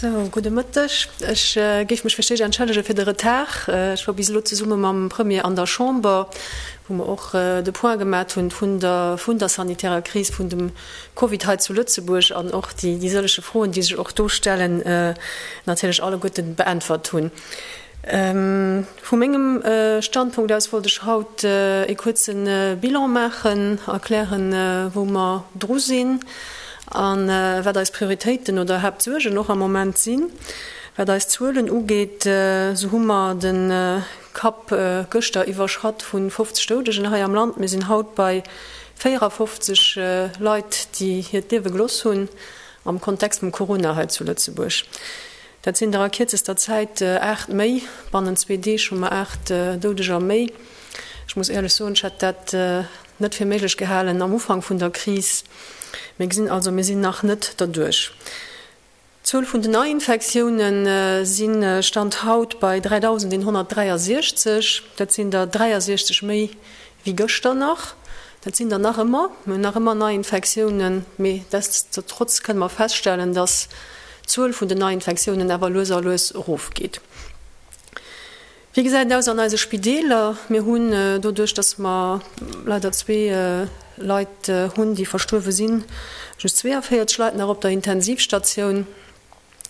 Sou, gudde Mëtteg. Ech géif mech fir d'éischt entschëllege fir de Retard. Ech war bis elo zesumme mam Premier an der Chamber, wou mer och de Point gemat hunn vun der vun der sanitärer Kris vun dem Covid hei zu Lëtzebuerg an och déi déi sëllege Froen, déi sech och do stellen, natierlech alleguerte beäntwert hunn. Vu mengem Standpunkt aus wollt ech haut e kuerze Bilan maachen, erklären, wou mer dru sinn a wat eis Prioritéiten oder Haaptsuergen och am Moment sinn. Wat eis Zuelen ugeet, esou hu mer de Kapp gëschter iwwerschratt vu 50 Doudegen hei am Land. Mir sinn haut bei 54 Leit, déi hiert Liewe gelooss hunn am Kontext vum Corona hei zu Lëtzebuerg. Dat sinn der a kierzester Zäit 8 méi. Bannent zwee Deeg hu mer 8 Doudeger méi. Ech muss éierlech soen, ech hätt dat net fir méiglech gehalen am Ufank vun der Kris. Mir gesinn also, mir sinn nach net derduerch. D'Zuel vun den Neiinfektioune si Stand haut bei 3.163. Dat sinn der 63 méi wéi gëschter nach. Dat sinn der nach ëmmer. Mir hunn nach ëmmer Neiinfektiounen, mee deststotrotz kënne mer feststellen, dass d'Zuel vun den Neiinfektiounen awer lues a lues erofgeet. Wéi gesäit et aus an eise Spideeler? Mir hunn doduerch, dass mer leider zwee Leit hunn, déi verstuerwe sinn, just 42 Leit nach op der Intensivstatioun.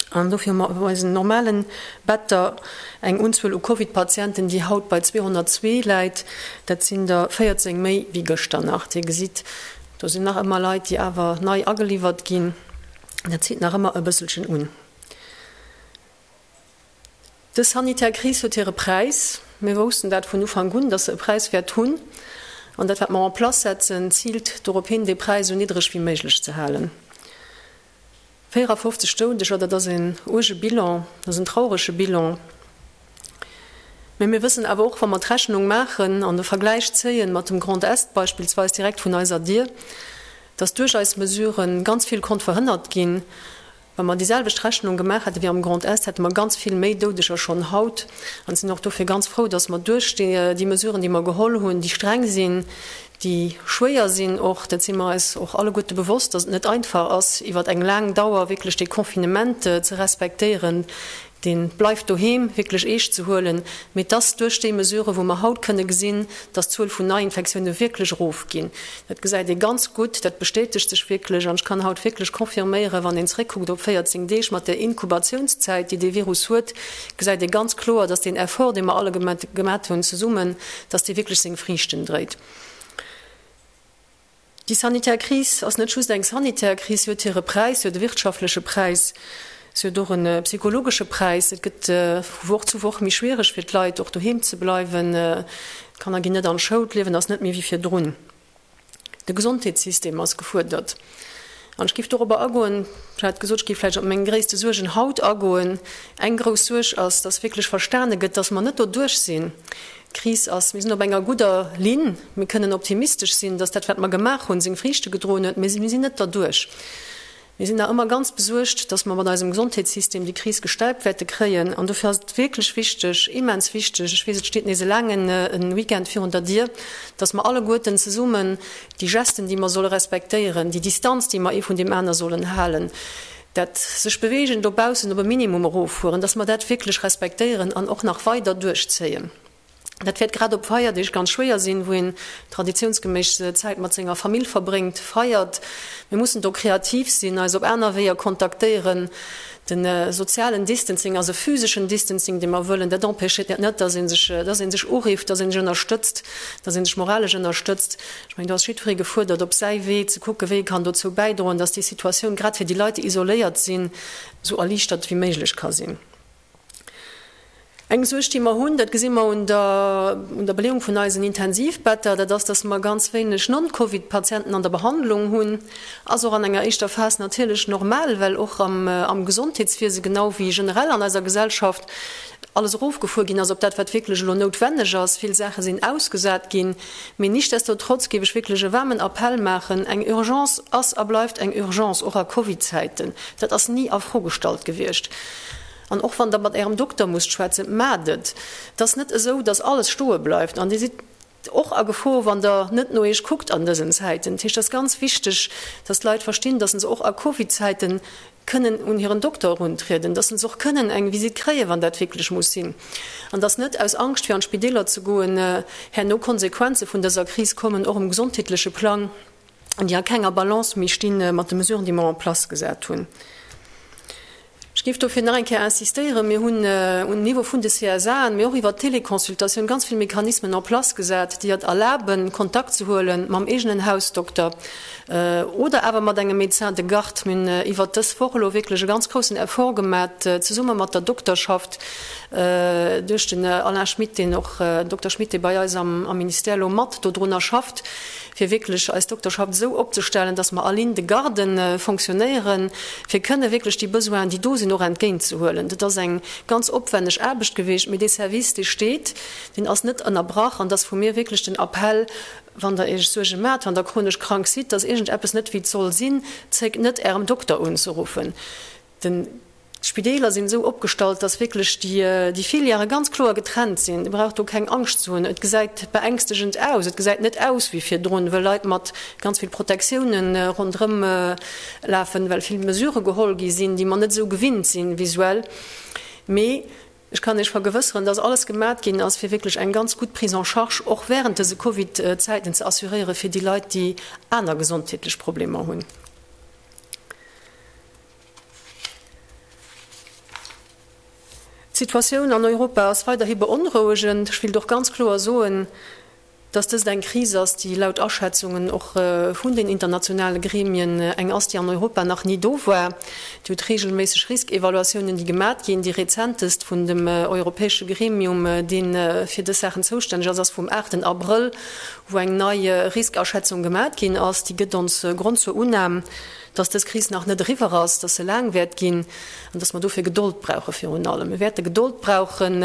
An dofir hu mer op eisen normalen Better eng Unzuel u Covid-Patienten, déi haut bei 202 läit. Dat sinn der 14 méi wéi gëschter nach. Dir gesitt, do sinn nach ëmmer Leit, déi awer nei ageliwwert ginn. Dat zitt nach ëmmer e bësselchen un. Dës sanitär Kris huet hire Präis. Mir woussten dat vun Ufank un, dass se e Präis wäert hunn. An dat, wat mer en place setzen, ziilt dorop hin, dee Präis esou niddreg wéi méiglech ze halen. 54 Doudeger, dat ass en uerge Bilan, dat ass en traurege Bilan. Mä mir wëssen awer och, wa mer d'Rechnung maachen an de Vergläich zéien mat dem Grand Est beispillsweis direkt vun eiser Dier, dass duerch eis Mesurë ganz vill konnt verhënnert ginn. Wa mer déi selwecht Rechnung gemaach hätte wéi am Grand Est, hätte mer ganz vill méi Doudeger schonn haut. An sinn och dofir ganz frou, dass mer duerch déi Mesuren, déi mer geholl hunn, déi streng sinn, déi schwéier sinn och, dat si mer eis och alleguerte bewosst, dass et net einfach ass, iwwer eng laang Dauer wierklech dee Confinement ze respektéieren, dee Bleif doheem wierklech eescht ze huelen, mee dass duerch déi Mesuren, wou mer haut kënne gesinn, dass d'Zuel vun Neiinfektioune wierklech erofginn, dat gesäit ee ganz gutt, dat bestätegt sech wierklech. An ech kann haut wierklech confirméieren, wann een zréckkuckt op 14 Deeg mat där Inkubatiounszäit, déi dee Virus huet, gesäit ee ganz kloer, dass deen Effort, dee mer alle gemat hunn zesummen, dass dee wierklech seng Friichten dréit. Déi sanitär Kris ass net just eng sanitär Kris, si huet hire Präis, si huet e wirtschaftleche Präis, si huet och e psychologesche Präis. Et gëtt vu Woch zu Woch méi schwiereg fir d'Leit, och doheem ze bleiwen. D'Kanner ginn net an d'Schoul, d'Liewen ass net méi wéi virdrun. De Gesondheetssystem ass gefuerdert. An ech géif dorobber agoen, ech hat gesot, ech géif vläicht op meng gréisste Suergen haut agoen. Eng grouss Suerg ass, dass wierklech verstane gëtt, dass mer net doduerch sinn. D'Kris ass, mir sinn op enger gudder Linn, mir kënnen optimistesch sinn, dass dat, wat mer gemaach hunn, seng Friichte gedroen huet, mee mir sinn net derduerch. Mir sinn nach ëmmer ganz besuergt, dass mer mat eisem Gesondheetssystem déi Kris gestäipt wäerte kréien. An dofir ass et wierklech wichteg, immens wichteg, ech weess, et steet nees e laangen Weekend virun der Dier, dass mer alleguerten zesummen déi Gesten, déi mer solle respektéieren, déi Distanz, déi mer ee vun deem aner sollen halen, dat sech Beweegen dobaussen op e Minimum eroffueren, dass mer dat wierklech respektéieren an och nach weider duerchzéien. Dat wäert grad op Feierdeeg ganz schwéier sinn, wou een traditiounsgeméiss Zäit mat senger Famill verbréngt, feiert. Mir mussen do kreativ sinn, eis op aner Weeër kontaktéieren. De sozialen Distancing ass e physeschen Distancing, dee mer wëllen. Dat empêchéiert net, dass ee sech, dass ee sech urifft, dass ee sech ënnerstëtzt, dass ee sech moralesch ënnerstëtzt. Ech mengen, do ass jiddweree gefuerdert, op säi Wee ze kucken, wéi e kann dozou bäidroen, dass déi Situatioun grad fir déi Leit, déi isoléiert sinn, esou erliichtert wéi méiglech ka sinn. Eng Suerg, déi mer hunn, dat gesi mer un der, un der Beleeung vun eisen Intensivbetter, dat ass, dass mer ganz wéineg Non-Covid-Patienten an der Behandlung hunn. Ass och an enger éischter Phas natierlech normal, well och am, am Gesondheetswiese genau wéi generell an eiser Gesellschaft alles erofgefuer ginn ass op dat, wat wierklech elo noutwenneg ass. Vill Saache sinn ausgesat ginn. Mee nichtsdestotrotz géif ech wierklech e waarmen Appell maachen, Eng Urgence ass a bleift eng Urgence, och a Covid-Zäiten. Dat ass ni a Fro gestallt gewiescht. An och wann Der mat Ärem Dokter musst schwätzen, maacht et. Et ass net esou, dass alles stoe bleift an Dir sidd. och a Gefor, wann Der net no Iech kuckt an dësen Zäiten. Dat heescht, et ass ganz wichteg, dass d'Leit verstinn, dass se och a Covid-Zäite kënnen un hiren Dokter eruntrieden, dass se och kënnen eng Visitt kréien, wann dat wierklech muss sinn, an dass net aus Angscht, fir an d'Spideeler ze goen, herno Konsequenze vun dëser Kris kommen, och um gesondheetleche Plang, déi a kenger Balance méi sti mat de Mesuren, déi mer en place gesat hunn. Ech géif dofir nach eng Kéier insistéieren, Mir hunn um Niveau vun de CSAen, mee och iwwert d'Téléconsultatioun ganz vill Mechanismen en place gesat, déi et erlaben, Kontakt ze huele mam eegenen Hausdokter oder awer mat engem Médecin de garde. Mir hunn iwwert dës Woch elo wierklech e ganz groussen Effort gemat, zesumme mat der Dokterschaft, duerch den Alain Schmit, deen och, Dokter Schmit, dee bei eis am Ministère elo mat dodrunner schafft, fir wierklech eis Dokterschaft esou opzestellen, dass mer a Ligne de garde fonctionnéieren, fir kënne wierklech déi Besoinen, déi do sinn, och entgéintzehuelen. Dat ass eng ganz opwenneg Aarbecht gewiescht, mee dee Service, dee steet, deen ass net ënnerbrach. An dass vu mir wierklech den Appell, Wann Der Iech Suerge maacht, wann Der chronesch krank sidd, dass iergendeppes net wéi et soll sinn, zéckt net, Ärem Dokter unzeruffen. Den. D'Spideeler sinn esou opgestallt, dass wierklech déi Filièrë ganz kloer getrennt sinn. Dir braucht do keng Angscht ze hunn. Et gesäit beängstegend aus. Et gesäit net aus wéi virdrun, wëll Leit mat ganz vill Protektioune ronderëm lafen, well vill Mesurë geholl gi sinn, déi mer net esou gewinnt sinn visuell. Mee ech kann Iech vergewësseren, dass alles gemat ginn ass, fir wierklech eng ganz gutt Prise en charge och während dëse Covid-Zäiten ze assuréiere fir déi Leit, déi aner gesondheetlech Problemer hunn. D'Situatioun an Europa ass weiderhi beonrouegend. Ech wéilt och ganz kloer soen, dass dëst eng Kris ass, déi laut Aschätzungen och vun den internationale Gremien eng ass, déi an Europa nach ni do war. Dir hutt reegelméisseg Riskevaluatiounen, déi gemat ginn. Déi rezentest vun dem europäesche Gremium, dee fir dës Saachen zoustänneg ass, ass vum aachten Abrëll, wou eng nei Riskaschätzung gemat ginn ass. Déi gëtt ons Grond zur Unnam, dass dës Kris nach net eriwwer ass, dass se laang wäert ginn an dass mer dofir Gedold brauche virun allem. Mir wäerte Gedold brauchen,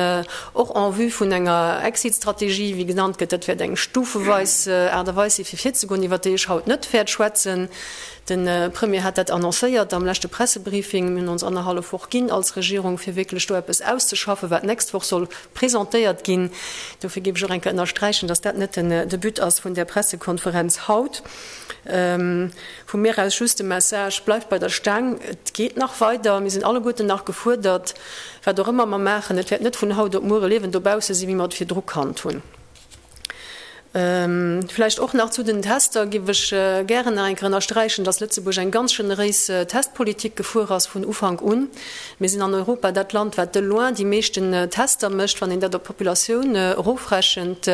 och en vue vun enger Exit-Strategie, wéi genannt gëtt. Dat wäert eng stufeweis Aart a Weis si fir virzegoen, iwwert déi ech haut net wäert schwätzen. De Premier hat dat annoncéiert am leschte Pressebriefing. Mir hunn ons annerhallef Woch ginn als Regierung, fir wierklech do eppes auszeschaffen, wat d'nächst Woch soll presentéiert ginn. Dofir géif ech och eng Kéier ënnersträichen, dass dat net de But ass vun där Pressekonferenz haut. Vu mir aus just de Message, Bleift bei der Staang, et geet nach weider, mir sinn alleguerten nach gefuerdert, wat och ëmmer mer maachen, et wäert net vun haut op muer e Liewen dobausse sinn, wéi mer et virdru kannt hunn. Vläicht och nach zu den Tester géif ech gären nach eng Kéier ënnersträichen, dass Lëtzebuerg eng ganz generéis Testpolitik gefuer ass vun Ufank un. Mir sinn an Europa dat Land, wat de loin déi meeschten Tester mécht, wann een dat op d'Populatioun erofrechent,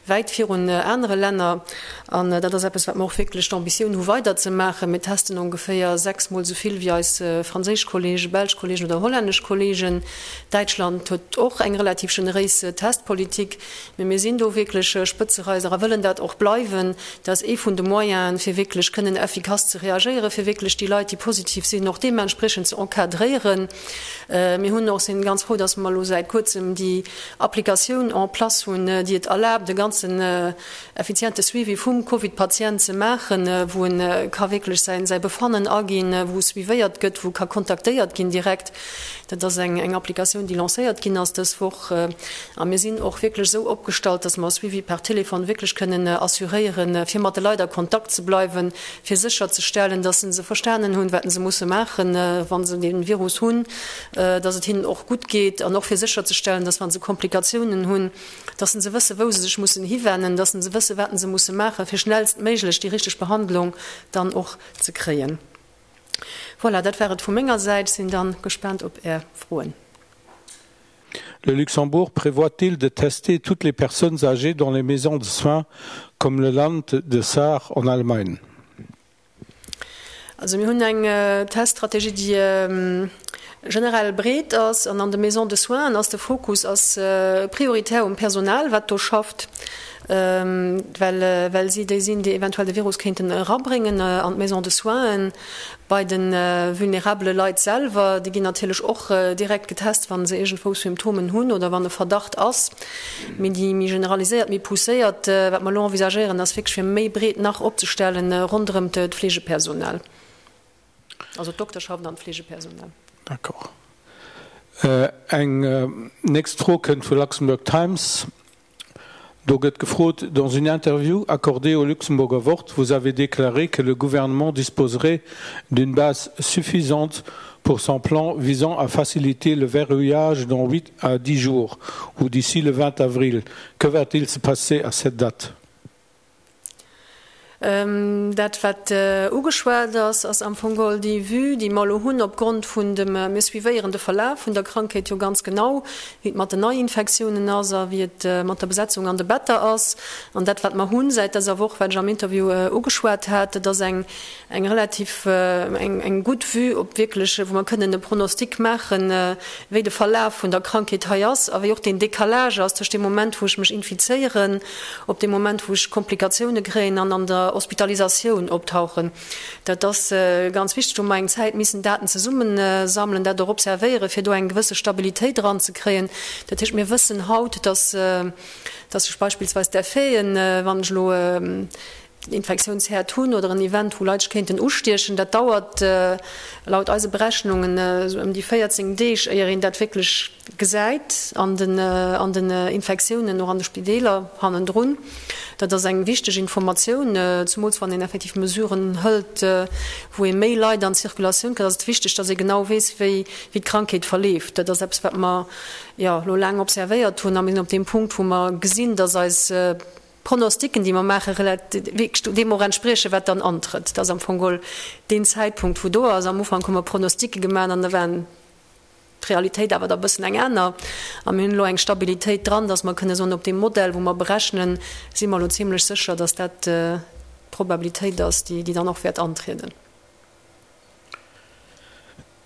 wäit virun anere Länner. An dat ass eppes, wat mer och wierklech d'Ambitioun hu weiderzemaachen. Mir testen ongeféier sechsmol esou vill wéi eis franséisch Kollegen, belsch Kollegen oder hollännesch Kollegen. Däitschland huet och eng relativ generéis Testpolitik. Mee mir sinn do wierklech Spëtzereiser a wëllen dat och bleiwen. Dat ass ee vun de Moyenen, fir wierklech kënnen effikass ze reagéieren, fir wierklech déi Leit, déi positiv sinn, och deementspriechend ze encadréieren. Mir hunn och, sinn ganz frou, dass mer elo säit Kuerzem déi Applikatioun en place hunn, déi et erlaabt, e ganzen effiziente Suivi vum Covid-Patient ze maachen, wou e ka wierklech säin säi Befannen aginn, wou suivéiert gëtt, wou ka kontaktéiert ginn direkt. Dat ass eng eng Applikatioun, déi lancéiert ginn ass dës Woch. A mir sinn och wierklech esou opgestallt, dass mer e Suivi per Téléphone wierklech kënnen assuréieren, fir mat de Leit a Kontakt ze bleiwen, fir sécherzestellen, dass se verstanen hunn, wat se musse maachen, wa se dee Virus hunn, dass et hinnen och gutt geet an och fir sécherzestellen, dass wa se Komplikatiounen hunn, dass se wëssen, wou se sech mussen hiwennen, dass se wëssen, wat se musse maachen, fir schnellstméiglech déi richteg Behandlung dann och ze kréien. Voilà, dat war et vu menger Säit. Sinn dann gespaant op Är Froen. Le Luxembourg prévoit-il de tester toutes les personnes âgées dans les maisons de soins comme le Land de Saar en Allemagne? Also mir hunn eng Teststrategie, déi generell breet ass an an de Maisons de soins ass de Fokus ass prioritär um Personal, wat do schafft, well well si déi sinn, déi eventuell de Virus kéinten erabréngen an d'Maisons de soins. Bei de vulnerabele Leit selwer, déi ginn natierlech och direkt getest, wa se iergendwou Symptomen hunn oder wann e Verdacht ass. Mee déi méi generaliséiert, méi pousséiert, wat mer elo envisagéieren, ass wierklech fir méi breet nach opzestellen ronderëm d'Fleegepersonal, also d'Dokterschaft an d'Fleegepersonal. D'accord. Eng nächst Fro kënnt vu Luxembourg Times. Do gëtt gefrot, Dans une interview accordée au Luxemburger Wort, vous avez déclaré que le gouvernement disposerait d'une base suffisante pour son plan visant à faciliter le verrouillage dans 8 à 10 jours ou d'ici le 20 avril. Que va-t-il se passer à cette date? Dat, wat ugeschwat ass, ass am Fong geholl déi Vue, déi mer elo hunn opgrond vun dem, mir suivéieren de Verlaf vun der Krankheet jo ganz genau, wéi et mat den Neiinfektiounen ass a wéi et mat der Besetzung an de Better ass. An dat, wat mer hunn säit dëser Woch, wat ech am Interview ugeschwat hat, dat ass eng eng relativ, eng gutt Vue op wierklech, wou mer kënnen e Pronostic maachen, wéi de Verlaf vun der Krankheet hei ass a wéi och deen Décalage ass tëscht deem Moment, wou ech mech infizéieren, op deem Moment, wou ech Komplikatioune kréien an an der Hospitalisatioun optauchen. Dat ass ganz wichteg. Do hu mer eng Zäit missen Daten zesummesammelen, dat och observéieren, fir do eng gewësse Stabilitéit eranzekréien. Dat heescht, mir wëssen haut, dass, dass sech beispillsweis d'Effeten, wann ech elo den Infektiounsherd hunn oder en Event, wou Leit sech kéinten ustiechen, dat dauert laut eise Berechnungen esou ëm déi 14 Deeg, éier een dat wierklech gesäit an den an den Infektiounen, och an de Spideeler hannendrun. Dat ass eng wichteg Informatioun, zumools wann een effektiv Mesuren hëlt, wou ee méi Leit an d'Circulatioun kritt, ass et wichteg, datt ee genau weess, wéi wéi d'Krankheet verleeft. Dat ass eppes, wat mer, jo, elo laang observéiert hunn a mir sinn op deem Punkt, wou mer gesinn, datt eis Pronosticken, déi mer maachen, wierklech deem och entspriechen, wat dann antrëtt. Dat ass am Fong geholl deen Zäitpunkt, wou do ass. Am Ufank hu mer Pronosticke gemaach an da waren d'Realitéit awer da e bëssen eng aner. A mir hunn elo eng Stabilitéit dran, dass mer kënne soen, op deem Modell, wou mer berechnen, si mer elo zimlech sécher, dass dat d'Probabilitéit ass, déi dann och wäert antrieden.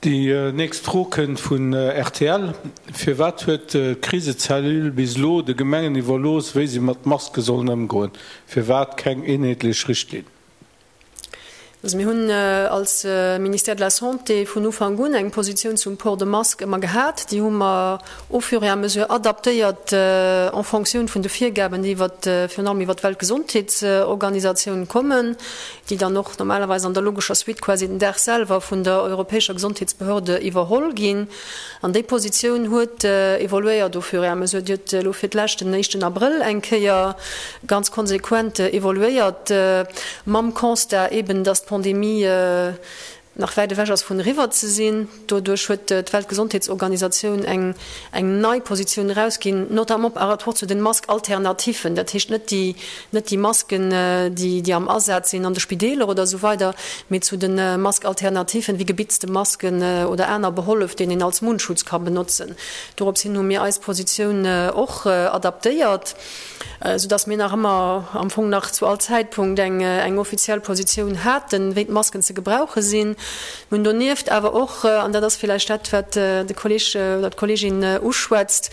Déi nächst Fro kënnt vun rtl. Firwat huet d'Krisecellule bis elo de Gemengen iwwerlooss, wéi se mat Maske sollen ëmgoen? Firwat keng eenheetlech Richtlinn? Also mir hunn als Ministère de la Santé vun Ufank un eng Positioun zum Port de masque ëmmer gehat. Déi hu mer au fur et à mesure adaptéiert en fonctioun vun de Virgaben, déi iwwer, virun allem iwwer d'Weltgesondheetsorganisatioun kommen. déi dann och normalerweis an der logescher Suite quasi den Dag selwer vun der europäescher Gesondheetsbehörde iwwerholl ginn. An déi Positioun huet evoluéiert au fur et à mesure. Déi huet elo fir d'lescht den éischten Abrëll eng Kéier ganz konsequent evoluéiert, mam Constat eben, dass d'Pandemie nach wäit ewech ass vun eriwwer ze sinn. Doduerch huet d'Weltgesondheetsorganisatioun eng eng nei Positioun erausginn, notamment par rapport zu den Masque-alternatifen, dat heescht net déi net déi Masken, déi déi am Asaz sinn an de Spideeler oder esou weider, mee zu de Masque-alternatifen wéi gebitzte Masken oder aner Behollef, deen een als Mundschutz ka benotzen. Dorops hin hu mir eis Positioun och adaptéiert. Sou dass mir nach ëmmer, am Fong nach zu all Zäitpunkt eng eng offiziell Positioun haten, wéi d'Masken ze gebrauche sinn. Mir hunn donieft awer och, an dat ass villäicht dat, wat de Kolleg oder d'Kollegin uschwätzt,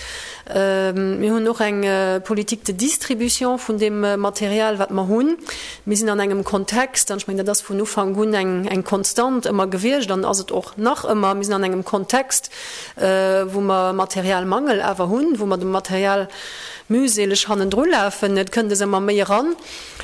mir hunn och eng Politique de distribution vun deem Material, wat mer hunn. Mir sinn an engem Kontext, an ech mengen, dat ass vun Ufank un eng eng Konstant ëmmer gewiescht an ass et och nach ëmmer, mir sinn an engem Kontext, wou mer Materialmangel awer hunn, wou mer de Material mühseleg hannendru lafen, et kënnt es ëmmer méi eran,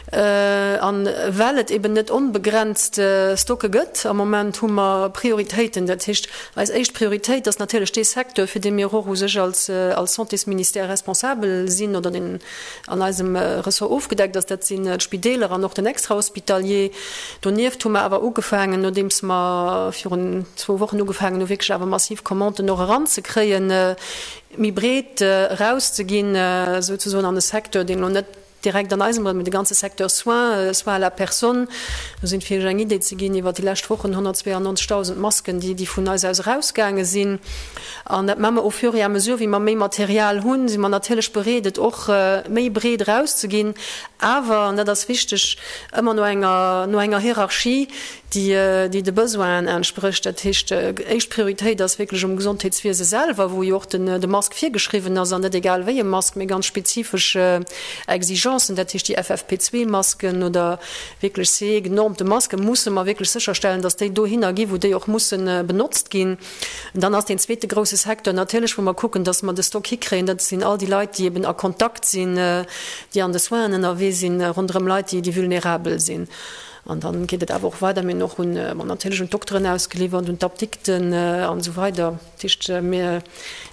an well et eben net onbegrenzt Stocke gëtt, am Moment hu mer Prioritéiten. Dat heescht, eis éischt Prioritéit ass natierlech dee Secteur, fir dee mir och u sech als Santésministère responsabel sinn oder deen an eisem Ressort ofgedeckt ass, dat sinn d'Spideeler an och den Extrahospitalier. Donieft hu mer awer ugefaangen, nodeems mer virun zwou Wochen ugefaangen hu wierklech awer massiv Commanden och eranzekréien, méi breet erauszeginn, souzesoen an e Secteur, deen elo net direkt an eisem, mee de ganze Secteur Soins, Soins à la personne. Do sinn, fir Iech eng Idee ze ginn, iwwert déi lescht Wochen 192.000 Masken, déi, déi vun eis aus erausgaange sinn. An dat maache mer au fur et à mesure, wéi mer méi Material hunn, si mer natierlech bereet, et och méi breet erauszeginn, awer, an dat ass wichteg, ëmmer no enger, no enger Hierarchie, déi déi de Besoinen entsprécht. Dat heescht, éischt Prioritéit ass wierklech um Gesondheetswiese selwer, wou jo och den de Mask virgeschriwwen ass, an net egal wéi e Mask, mee ganz spezifesch Exigencen, dat heescht déi FFP2-Masken oder wierklech CE-genormte Masken, musse mer wierklech sécherstellen, dass déi dohinner gi wou déi och musse benotzt ginn. An dann ass deen zweete grouse Secteur natierlech, wou mer kucken, dass mer de Stock hikréien, dat sinn all déi Leit, déi eben a Kontakt sinn, déi an de Soinen ënnerwee sinn, ronderëm Leit, déi vulnerabel sinn. An dann geet et awer och weider. Mir hunn och un, bon, natierlech un d'Dokteren ausgeliwwert, un d'Apdikten an esou weider. Dat heescht, mir,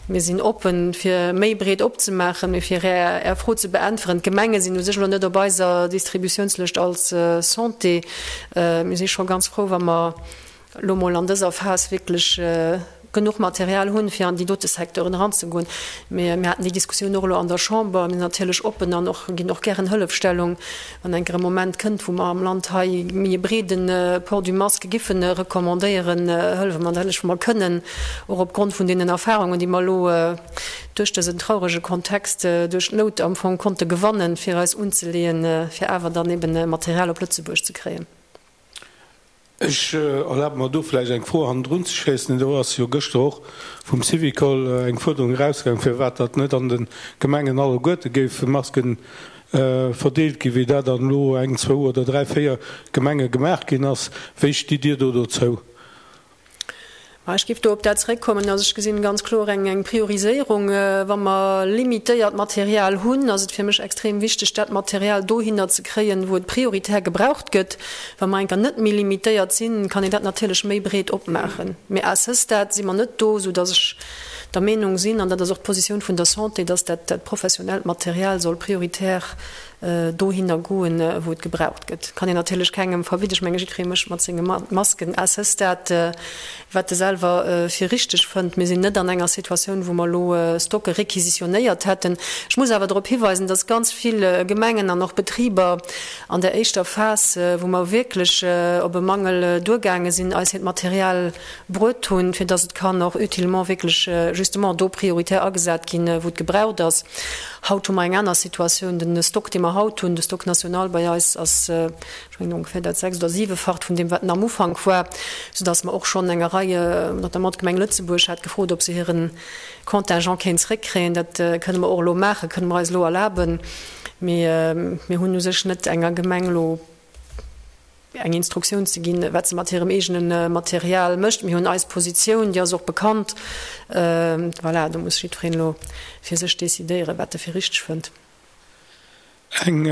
mir sinn oppen, fir méi breet opzemaachen. Mee fir Är, Är Fro ze beäntweren, D'Gemenge sinn u sech elo net op eiser Distributiounslëscht als Santé. Mir si scho ganz frou, wa mer elo mol an dëser Phas wierklech genuch Material hunn, fir an déi dote Secteuren eranzegoen. Mee mir haten déi Diskussioun och elo an der Chamber. Mir sinn natierlech oppen an och ginn och gären Hëllefstellung, wann eng Kéier e Moment kënnt, wou mer am Land hei méi e breede Port du masque giffen recommandéieren, hëllefe mer natierlech, wou mer kënnen, och opgrond vun deenen Erfahrungen, déi mer elo duerch dësen traurege Kontext, duerch d'Nout am Fong konnte gewannen, fir eis unzeleeën, fir awer dann eben Material op Lëtzebuerg ze kréien. Ech erlabe mer do vläicht eng Fro hannendrun ze schéissen. Do ass jo gëschter och vum Syvicol eng Fuerderung erausgaang, firwat datt net an de Gemengen alleguerte géife Masken verdeelt ginn, wéi dat an elo eng, zwou oder dräi, véier Gemenge gemaach ginn ass. Wéi stitt Dir do dozou? Ma ech géif do op dat zeréckkommen, also ech gesinn ganz kloer eng eng Prioriséierung. Wa mer limitéiert Material hunn, ass et fir mech extrem wichteg, dat Material dohinner ze kréien, wou et prioritär gebraucht gëtt. Wa mer enker net méi limitéiert sinn, kann een dat natierlech méi breet opmaachen. Mee à ce stade si mer net do, soudass ech der Meenung sinn, an dat ass och d'Positioun vun der Santé, dass dat dat professionellt Material soll prioritär dohinner goen, wou et gebraucht gëtt. Kann een natierlech kengem verbidden. Ech menge jiddweree mécht mat senge Masken à ce stade, wat e selwer fir richteg fënnt. Mir sinn net an enger Situatioun, wou mer elo Stocke requisitionéiert hätten. Ech muss awer drop hiweisen, dass ganz vill Gemengen an och Betriber an der éischter Phas, wou mer wierklech op e Mangel duergaange sinn, eis hiert Material bruet hunn, fir dass et kann och utilement wierklech justement do prioritär agesat ginn, wou et gebraucht ass. Haut hu mer eng aner Situatioun. Den Stock, dee mer haut hunn, de Stock national bei eis, ass, ech mengen, ongeféier dat sechst oder siwefacht vun deem, wat en am Ufank war, soudass mer och schonn enger Rei, notamment d'Gemeng Lëtzebuerg hat gefrot, ob se hire Contingent kéint zréckkréien. Dat kënne mer och elo maachen, kënne mer eis elo erlaben. Mee mir hunn u sech net enger Gemeng elo eng Instruktioun ze ginn, wat se mat hirem eegene Material mécht. Mir hunn eis Positioun, déi ass och bekannt. Voilà, do muss jiddwereen elo fir sech decidéieren, wat e fir richteg fënnt. Eng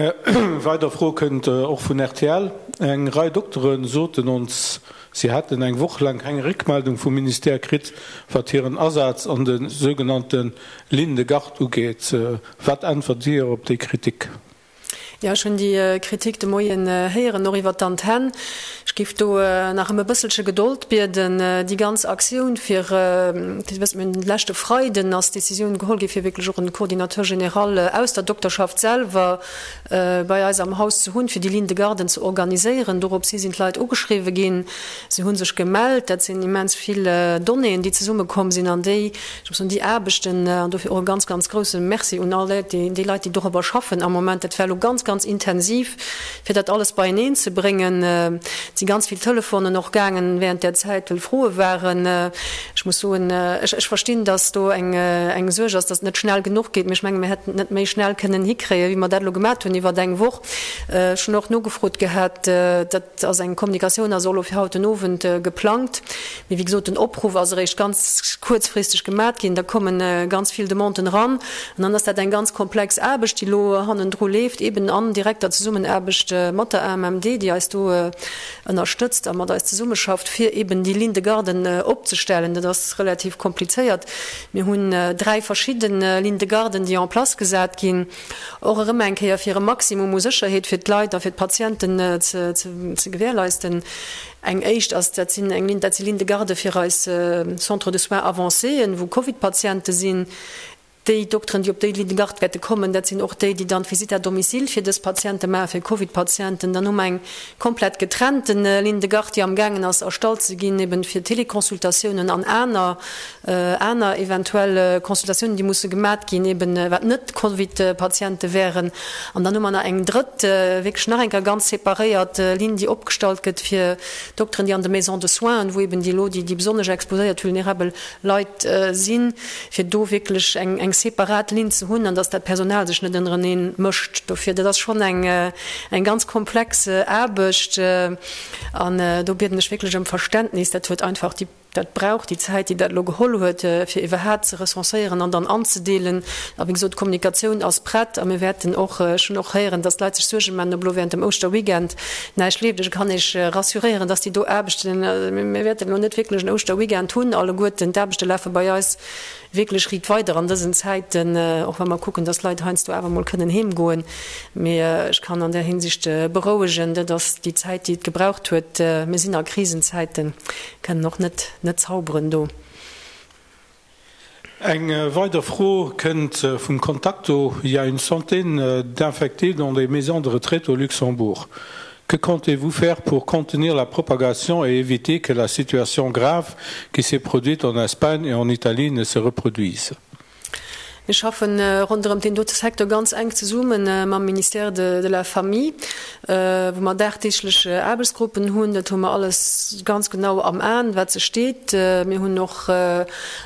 weider Fro kënnt och vun rtl. Eng Rei Doktere soten ons, si hätten eng Woch laang keng Réckmeldung vum Ministère kritt, wat hiren Asaz an de sougenannte Lignes de garde ugeet. Wat äntwert Dir op déi Kritik? Jo, ech hunn déi Kritik de Moien héieren, och iwwert d'Antenn. Ech géif do nach ëm e bësselche Gedold bieden. Déi ganz Aktioun fir, Dir wësst, mir hunn de leschte Freiden ass d'Décisioun geholl gi fir wierklech och en Coordinateur général aus der Dokterschaft selwer bei eis am Haus ze hunn, fir déi Ligne de garden ze organiséieren. Doropshi sinn d'Leit ugeschriwwe ginn. Se hu sech gemellt. Dat sinn immens vill Donnéeën, déi zesummekomm sinn an déi, Ech muss soen, déi Aarbechten, an dofir och e ganz, ganz grouse Merci un all déi Leit, déi dorobber schaffen am Moment, dat war elo ganz, ganz intensiv, fir dat alles beieneen ze bréngen. Et si ganz vill Telefonen och gaangen während där Zäit, well Froe waren. Ech muss soen, ech, ech verstinn, dass do eng, eng Suerg ass, dass et net schnell genuch geet, mee ech menge mir hätten et net méi schnell kënnen hikréien, wéi mer dat elo gemat hunn iwwer eng Woch. Ech hunn och nogefrot gehat, dat, Et ass eng Kommunikatioun ass och elo fir haut den Owend geplangt. Mee wéi gesot, den Opruff ass eréischt ganz kuerzfristeg gemat ginn. Da komme ganz vill Demanden eran. An dann ass dat eng ganz komplex Aarbecht, déi elo hannendru leeft, eeben an direkter Zesummenaarbecht mat der AMMD, déi eis do ënnerstëtzt a mat eis zesummeschafft, fir eeben déi Ligne de garden opzestellen. Dat ass relativ komplizéiert. Mir hunn dräi verschidde Lignes de garden, déi en place gesat ginn. Och erëm eng Kéier fir e Maximum u Sécherheet fir d'Leit a fir d'Patienten ze gewährleisten. Eng éischt ass, dat sinn eng Ligne, dat si Lignes de garde fir eis Centres de soins avancéen, wou Covid-Patiente sinn. Déi Dokteren, déi op déi Ligne de garde wäerte kommen, dat sinn och déi, déi dann d'Visite à domicile fir dës Patiente maachen, fir Covid-Patienten. Dann hu mer eng komplett getrennte Ligne de garde, déi amgaangen ass erstallt ze ginn, eben fir Téléconsultatiounen an aner aner eventuell Consultatiounen, déi musse gemat ginn, eben wat net Covid-Patiente wären. An dann hu mer nach eng drëtt, wierklech nach eng Kéier ganz separéiert Linn, déi opgestallt gëtt fir Dokteren, déi an de Maisons de soins, wou eben déi elo déi besonnesch exposéiert, vulnerabel Leit sinn, fir do wierklech eng eng separat Linn ze hunn an dass dat Personal sech net ënnerenee mëscht. Dofir, dat ass schonn eng eng ganz komplex Aarbecht an do bieden ech wierklech ëm Verständnis. Dat huet einfach déi. Dat brauch déi Zäit, déi dat elo geholl huet, fir iwwerhat ze recenséieren an dann anzedeelen. A wéi gesot, d'Kommunikatioun ass prett a mir wäerten och, ech hunn och héieren, dass d'Leit sech Suerge maachen, ob elo während dem Ouschterweekend näischt leeft. Ech kann Iech rassuréieren, dass déi do Aarbechten, mir wäerten elo net wierklech en Ouschterweekend hunn alleguerten, d'Aarbechte lafe bei eis wierklech riit weider an dësen Zäiten, och wa mer kucken, dass d'Leit heiansdo awer emol kënnen heemgoen. Mee ech kann an där Hinsicht berouegen, dat ass déi Zäit, déi et gebraucht huet. Mir sinn a Krisenzäiten, kënnen och net net zauberen do. Eng weider Fro kënnt vum Contacto, Il y a une centaine d'infectés dans des maisons de retraite au Luxembourg. Que comptez-vous faire pour contenir la propagation et éviter que la situation grave qui s'est produite en Espagne et en Italie ne se reproduise? Mir schaffe ronderëm deen dote Secteur ganz enk zesumme mam Ministère de la Famille, wou mer dagdeeglech Aarbechtsgruppen hunn. Dat hu mer alles ganz genau am Aen, wat sech deet. Mir hunn och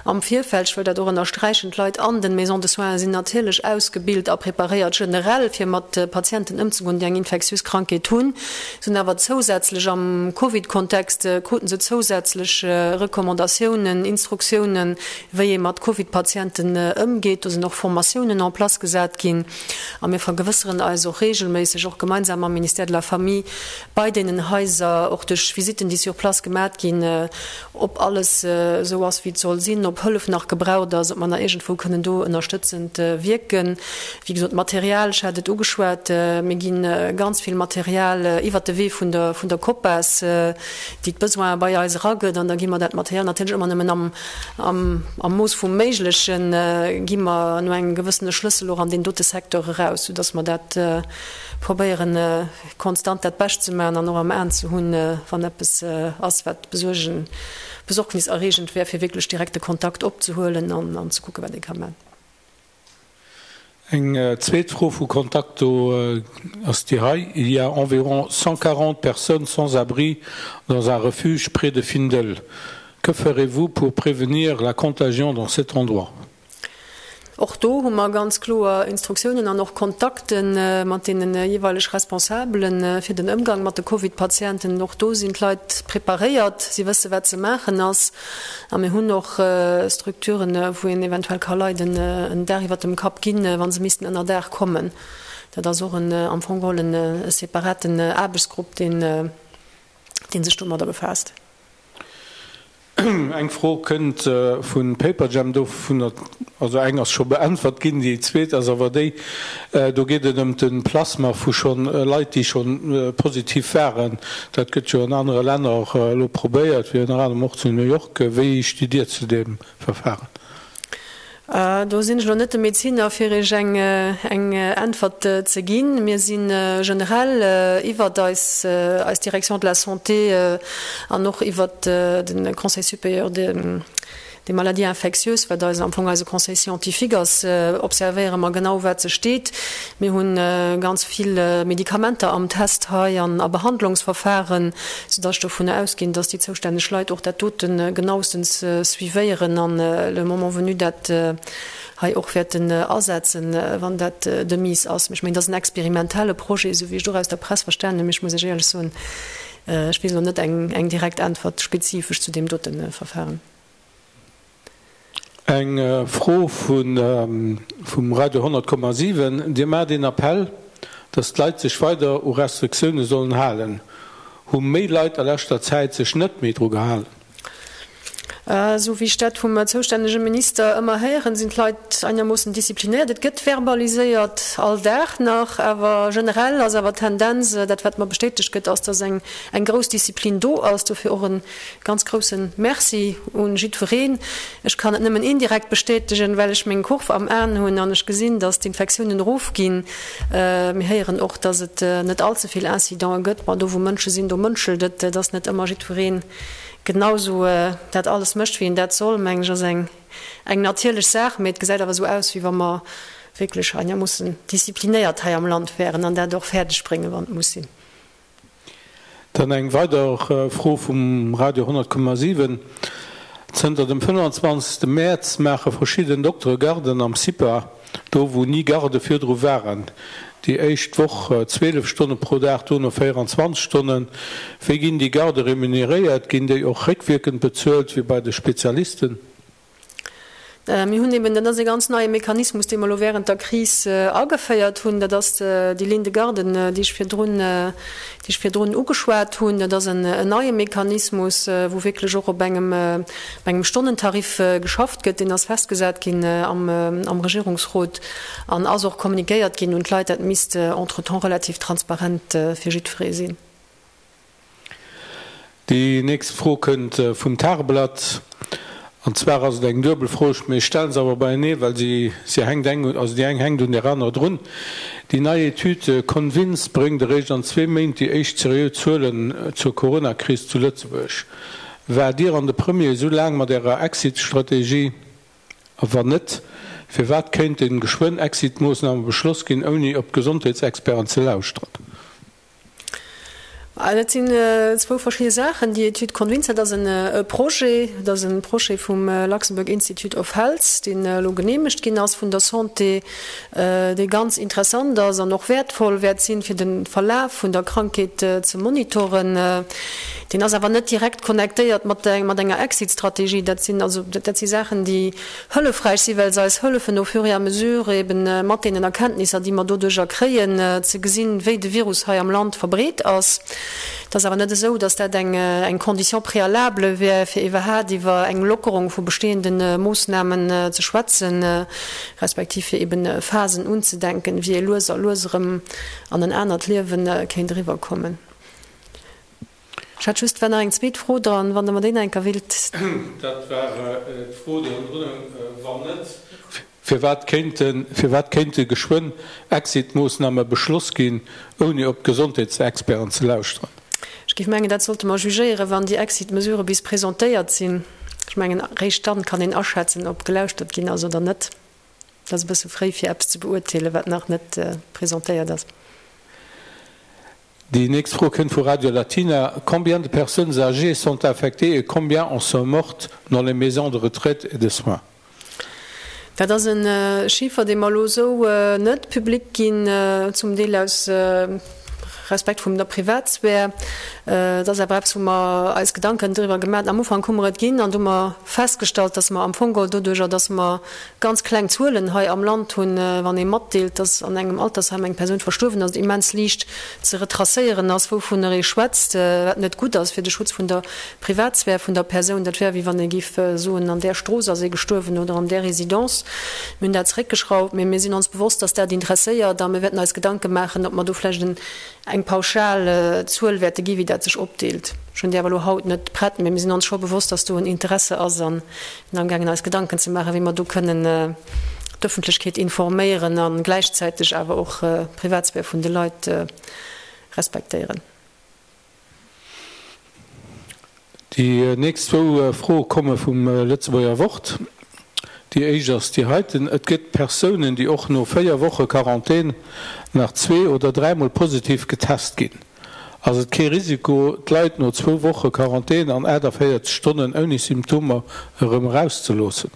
am Virfeld, ech wëll dat och ënnersträichen, d'Leit an den Maisons de soins sinn natierlech ausgebilt a preparéiert generell, fir mat Patienten ëmzegoen, déi eng infektiös Krankheet hunn. Se hunn awer zousätzlech am Covid-Kontext kruten se zousätzlech Recommandatiounen, Instruktiounen, wéi ee mat Covid-Patienten ëmgeet. Do sinn och Formatiounen en place gesat ginn. A mir vergewësseren eis och reegelméisseg, och gemeinsam mam Ministère de la Famille, bei deenen Haiser, och duerch Visitten, déi sur place gemat ginn, ob alles esou ass, wéi et soll sinn, ob Hëllef nach gebraucht ass, ob mer nach iergendwou kënnen do ënnerstëtzend wierken. Wéi gesot, d'Material, ech hat et ugeschwat, mir gi ganz vill Material iwwert de Wee vun der, vun der COPAS, déi d'Besoine bei eis eragëtt. An da gi mer dat Material natierlech ëmmer nëmmen am, am, am Mooss vum Méiglechen, gi mer no engem gewëssene Schlëssel och an deen dote Secteur eraus, soudass mer dat probéieren, konstant dat Bescht ze maachen an och am Aen ze hunn, wann eppes ass, wat besuergen, besorgniserreegend wär, fir wierklech direkt de Kontakt opzehuelen an ze kucken, wat ee ka maachen. Eng zweet Fro vu Contacto ass déi hei, Il y a environ 140 personnes sans abri dans un refuge près de Findel. Que ferez-vous pour prévenir la contagion dans cet endroit? Och do hu mer ganz kloer Instruktiounen an och Kontakte mat deene jeeweileg Responsabele fir den Ëmgang mat de Covid-Patienten. Och do sinn d'Leit preparéiert, si wësse wat ze maachen ass. A mir hunn och Structuren, wou een eventuell ka Leit en Daach iwwert dem Kapp ginn, wa se missten ënner Daach kommen. Dat ass och en, am Fong geholl en separaten Aarbechtsgrupp, deen sech domadder befaasst. Eng Fro kënnt vu Paperjam, dovunner, also eng ass scho beäntwert ginn, déi zweet ass awer déi, do geet et ëm de Plasma vu schonn Leit, déi schonn positiv waren. Dat gëtt jo an anere Länner elo probéiert, wéi ënner anerem och zu New York. Wéi stitt Dir zu deem Verfahren? Do sinn ech elo net de Medeziner, fir Iech eng Äntwert ze ginn. Mir si generell iwwert eis Direction de la Santé an och iwwert de Conseil supérieur des maladies infectieuses, wat eis am Fong eise Conseil scientifique ass, observéiere mer genau, wat sech deet. Mir hu ganz vill Medikamenter am Test hei an a Behandlungsverfahren, soudass ech dovunner ausginn, dass déi zoustänneg Leit och dat dote genauestens suivéieren an le moment venu dat hei och wäerten asetzen, wann dat de mise ass. Mee ech mengen, dat ass en experimentelle Projet, esou wéi ech et och aus der Press verstanen hunn. Mee ech muss Iech éierlech soen, ech weess elo net eng direkt Äntwert spezifesch zu deem dote Verfahren. Eng Fro vum Radio 100,7, Dir maacht een Appell, datt d'Leit sech weider u Restriktioune sollen halen. Hu méi Leit a leschter Zäit sech net méi dru gehalen? Esou wéi ech dat vum zoustännege Minister ëmmer héieren, sinn d'Leit einermoossen disziplinéiert. Et gëtt verbaliséiert all Dag nach, awer generell ass awer d'Tendenz, dat wat mer bestätegt gëtt, ass, datt eng grouss Disziplin do ass. Dofir och e Ganz groussen Merci un jiddwereen. Ech kann et nëmmen indirekt bestätegen, well ech meng Kurv am Aen hunn an ech gesinn, dass d'Infektiounen erofginn. Mir héieren och, dass et net all ze vill Incidenten gëtt. Ma do wou Mënsche sinn, do mënschelt et. Dass net ëmmer jiddwereen genau sou dat alles mécht, wéi en dat soll, mengen ech, ass eng eng natierlech Saach. Mee et gesäit awer esou aus, wéi wa mer wierklech einermoossen disziplinéiert hei am Land wären an dat och fäerdeg bréngen, wann et muss sinn. Dann eng weider Fro vum Radio 100,7, Zënter dem 25. Mäerz maache verschidden Doktere Garden am CIPA, do wou ni Garde virdru waren. Déi éischt Woch 12 Stonne pro Dag, dono 24 Stonnen. Wéi ginn déi Gardë remuneréiert? Ginn déi och réckwierkend bezuelt, wéi bei de Spezialisten? Mir hunn eben, dat ass e ganz neie Mechanismus, dee mer elo während der Kris ageféiert hunn, dat ass déi Ligne de garde, déi ech virdrun, déi ech virdrun ugeschwat hunn. Dat ass en neie Mechanismus, wou wierklech och op engem, op engem Stonnentarif geschafft gëtt. Deen ass festgesat ginn am, am Regierungsrot an ass och kommunikéiert ginn un d'Leit. Dat misst entretemps relativ transparent fir jiddweree sinn. Déi nächst Fro kënnt vum Tageblatt. An zwar ass et eng duebel Fro, mee ech stelle se awer beienee, well si si hänkt eng, also déi eng hänkt un där anerer drun. Déi nei Etüd Convince bréngt eréischt an zwee Méint déi éischt seriö Zuelen zur Coronakris zu Lëtzebuerg. Waart Dir an de Premier esou laang mat Ärer Exit-Strategie? A wann net, firwat kéinten geschwënn Exit-Moossname beschloss ginn, ouni op d'Gesondheetsexperten ze lauschteren? Dat sinn zwou verschidde Saachen. Déi Etüd Convince, dat ass e Projet, dat ass e Projet vum Luxembourg Institute of Health, deen elo geneemegt ginn ass vun der Santé, dee ganz interessant ass an och wäertvoll wäert sinn, fir de Verlaf vun der Krankheet ze monitoren. Deen ass awer net direkt connectéiert mat enger Exit-Strategie. Dat sinn also, dat si Saachen, déi hëllefräich sinn, well se eis hëllefen au fur et à mesure eben mat deenen Erkenntnisser, déi mer doduerjer kréien, ze gesinn, wéi de Virus hei am Land verbreet ass. Et ass awer net esou, datt dat eng Condition préalable wär, fir iwwerhaat iwwer eng Lockerung vu bestehende Moossnamen ze schwätzen, respektiv fir eben Phasen unzedenken, wéi ee lues a lues erëm an en anert Liewe kéint eriwwerkommen. Ech hat just, war nach eng zweet Fro dran, wann Der mer déi nach eng Kéier willt. Dat war d'Fro, déi hannendrun houng. Wann net, firwat kéinten, firwat kéinte geschwënn Exit-Moossname beschloss ginn, ouni op d'Gesondheetsexperten ze lauschteren? Ech géif mengen, dat sollte mer jugéieren, wann déi Exit-Mesurë bis presentéiert sinn. Ech mengen, eréischt dann kann een aschätzen, ob gelauschtert ginn ass oder net. Et ass e bësse fréi, fir eppes ze beurteelen, wat nach net presentéiert ass. Déi nächst Fro kënnt vu Radio Latina, Combien de personnes âgées sont infectées et combien en sont mortes dans les maisons de retraite et de soins? Dat ass e Chiffer, dee mer elo esou net public ginn, zum Deel aus Respekt vum der Privatsphär. Et ass awer eppes, wou mer eis Gedanken driwwer gemaach hunn. Am Ufank hu mer et ginn an du hu mer festgestallt, dass mer am Fong geholl doduerjer, dass mer ganz kleng Zuelen hei am Land hunn, wann ee matdeelt, dass an engem Altersheim eng Persoun verstuerwen ass, et immens liicht ze retracéieren ass, wouvunner ee schwätzt, wat net gutt ass fir de Schutz vun der Privatsphär vun der Persoun. Dat wär, wéi wann ee géif soen, an där Strooss ass ee gestuerwen oder an där Résidence. Mir hunn dat zeréckgeschrauft, mee mir sinn ons bewosst, dass dat interesséiert a mir wäerten eis Gedanke maachen, ob mer do vläicht en eng pauschal Zuel wäerte gi wéi dat sech opdeelt. Ech hunn déi awer elo haut net prett, mee mir sinn ons scho bewosst, dass do en Interesse ass a sinn amgaangen eis Gedanken ze maachen, wéi mer do kënnen d'Ëffentlechkeet informéieren a gläichzäiteg awer och d'Privatsphär vun de Leit respektéieren. Déi nächst zwou Froe komme vum Lëtzebuerger Wort. Déi éischt ass déi heiten, Et gëtt Persounen, déi och no 4 Woche Quarantän nach zwee oder dräimol positiv getest ginn. Ass et kee Risiko, d'Leit no zwou Woche Quarantän an 48 Stonnen ouni Symptomer erëm erauszeloossen?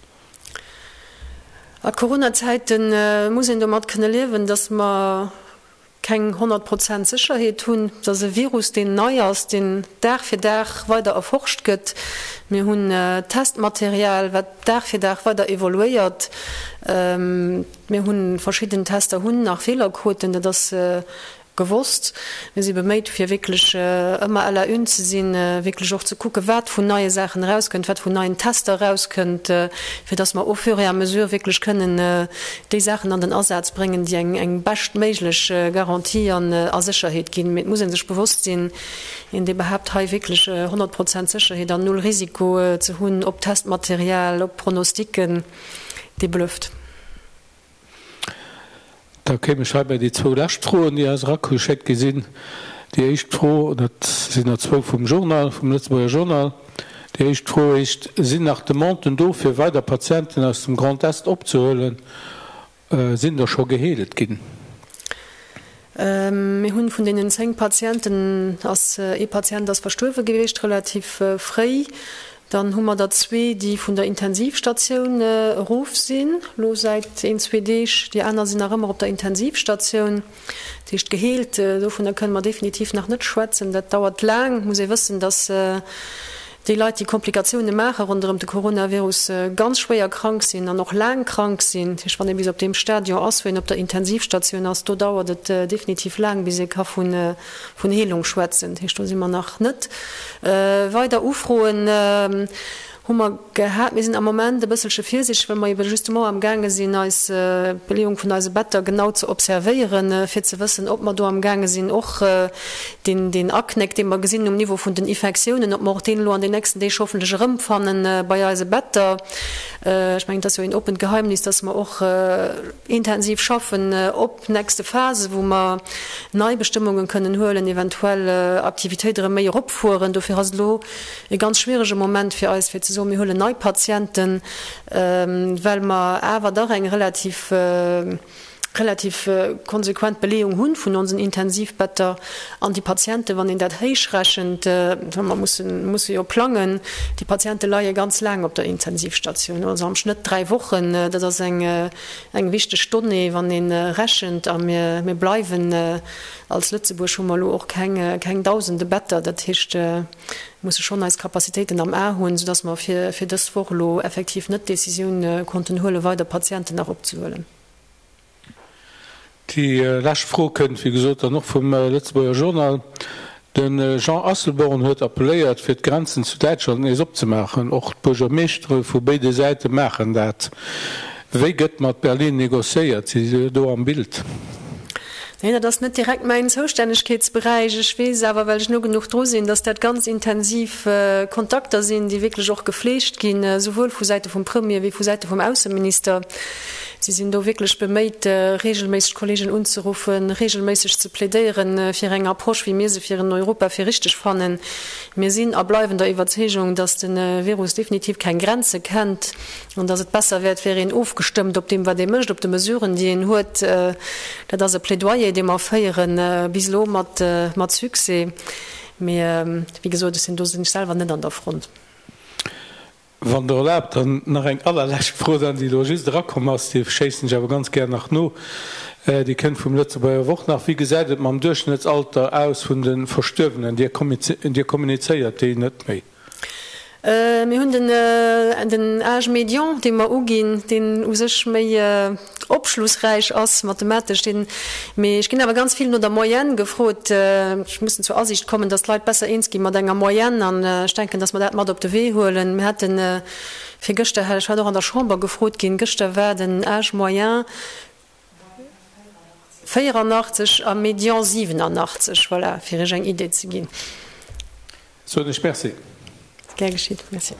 A Corona-Zäite muss een domat kënne liewen, datt mer keng 100 Prozent Sécherheet hunn. Et ass e Virus, deen nei ass, deen Dag fir Dag weider erforscht gëtt. Mir hunn Testmaterial, wat Dag fir Dag weider evoluéiert. Mir hu verschidden Tester hunn nach Feelerquoten, dat ass gewosst. Mir si beméit, fir wierklech ëmmer à la une ze sinn, wierklech och ze kucken, wat vun neie Saachen erauskënnt, wat vun neien Tester erauskënnt, fir dass mer au fur et à mesure wierklech kënnen déi Saachen an den Asaz bréngen, déi eng eng beschtméiglech Garantie an a Sécherheet ginn. Mee et muss ee sech bewosst sinn, een dee behaapt hei wierklech 100 Prozent Sécherheet an null Risiko ze hunn op Testmaterial, op Pronosticken, dee blufft. Da kéim ech hei bei déi zwou lescht Froen, déi eis erageschéckt gi sinn. Déi éischt Fro, dat sinn der zwou vum Journal, vum Lëtzebuerger Journal. Déi éischt Fro heescht, Sinn nach Demanden do, fir weider Patienten aus dem Grand Est opzehuelen? Sinn der scho geheelt ginn? Mir hunn vun deenen 10 Patienten ass ee Patient ass verstuerwe gewiescht, relativ fréi. Dann hu mer der zwee, déi vun der Intensivstatioun erof sinn, elo säit een, zwee Deeg. Déi aner sinn nach ëmmer op der Intensivstatioun. Dat heescht, geheelt, dovunner kënne mer definitiv nach net schwätzen. Dat dauert laang. Et muss ee wëssen, datt déi Leit, déi Komplikatioune maache ronderëm de Coronavirus, ganz schwéier krank sinn an och laang krank sinn. Dat heescht, wann ee bis op deem Stadion ass, wou een op der Intensivstatioun ass, do dauert et definitiv laang, bis ee ka vun Vun Heelung schwätzen, dat heescht, do si mer nach net. Weider Ufroen hu mer gehat. Mir sinn am Moment e bësselche virsiichteg, well mer ebe justement amgaange sinn, eis d'Beleeung vun eise Better genau ze observéieren, fir ze wëssen, ob mer do amgaange sinn, och deen, deen Aknéck, dee mer gesinn um Niveau vun den Infektiounen, ob mer och deen elo an den nächsten Deeg hoffentlech erëmfanne bei eise Better. Ech mengen, et ass jo een oppent Geheimnis, dass mer och intensiv schaffen op nächste Phase, wou mer nei Bestëmmungen kënnen huelen, eventuell Aktivitéit erëm méi eropfueren. Dofir ass et elo e ganz schwierege Moment fir eis, fir ze soen, mir huelen nei Patienten, well mer awer dach eng relativ, relativ konsequent Beleeung hu vun onsen Intensivbetter. An déi Patienten, wann een dat héichrechent, well mer mussen, musse jo plangen, déi Patiente leie ganz laang op der Intensivstatioun, also am Schnëtt 3 Wochen. Dat ass eng Eng wichteg Donnée, wann ee rechent, a mir bleiwen, als Lëtzebuerg hu mer elo och keng dausende Better, dat heescht, mir musse schonn eis Capacitéiten am A hunn, soudass mer fir dës Woch elo effektiv net d'Décisioun konnten huelen, weider Patienten nach opzehuelen. Déi lescht Fro kënnt, wéi gesot, dann och vum Lëtzebuerger Journal. De Jean Asselborn huet appelléiert, fir d'Grenzen zu Däitschland nees opzemaachen. Och d'Buergermeeschtere vu béide Säite maachen dat. Wéi gëtt mat Berlin negociéiert? Si si do am Bild? Neen, dat ass net direkt mäin Zoustännegkeetsberäich. Ech weess awer, well ech no genuch dru sinn, datt dat ganz intensiv Kontakter sinn, déi wierklech och gefleegt ginn, esouwuel vu Säite vum Premier wéi vu Säite vum Ausseminister. Si sinn do wierklech beméit, reegelméisseg d'Kollegen unzeruffen, reegelméisseg ze plädéieren fir eng Approche, wéi mir se fir en Europa fir richteg fannen. Mir sinn a bleiwen der Iwwerzeegung, dass de Virus definitiv keng Grenze kennt an dass et besser wäert, wär een ofgestëmmt op deem, wat ee mécht, op de Mesuren, déi een huet. Dat ass e Plädoyer, dee mer féieren, bis elo mat Succès. Mee wéi gesot, ech sinn do sinn ech selwer net an der Front. Wann Der erlaabt, dann nach eng allerlescht Fro dann, déi elo just erakomm ass, déi schéissen ech awer ganz gär nach no, déi kënnt vum Lëtzebuerger Wort nach, Wéi gesäit et mam Duerchschnëttsalter aus vun de Verstuerwenen? Dir kommunizéiert déi net méi? Mir hunn den Âge médian, dee mer uginn, deen u sech méi opschlussräich ass mathematesch, deen, mee ech ginn awer ganz vill no der Moyenne gefrot. Ech mussen zur Asiicht kommen, dass d'Leit besser eens gi mat enger Moyenne an ech denken, dass mer dat mat op de Wee huelen. Mir haten virgëschter, ech war och an der Chamber gefrot ginn, gëschter war den Âge moyen 84 a Médian 87, voilà, fir Iech eng Idee ze ginn. Soen ech Merci. Gär geschitt. Merci.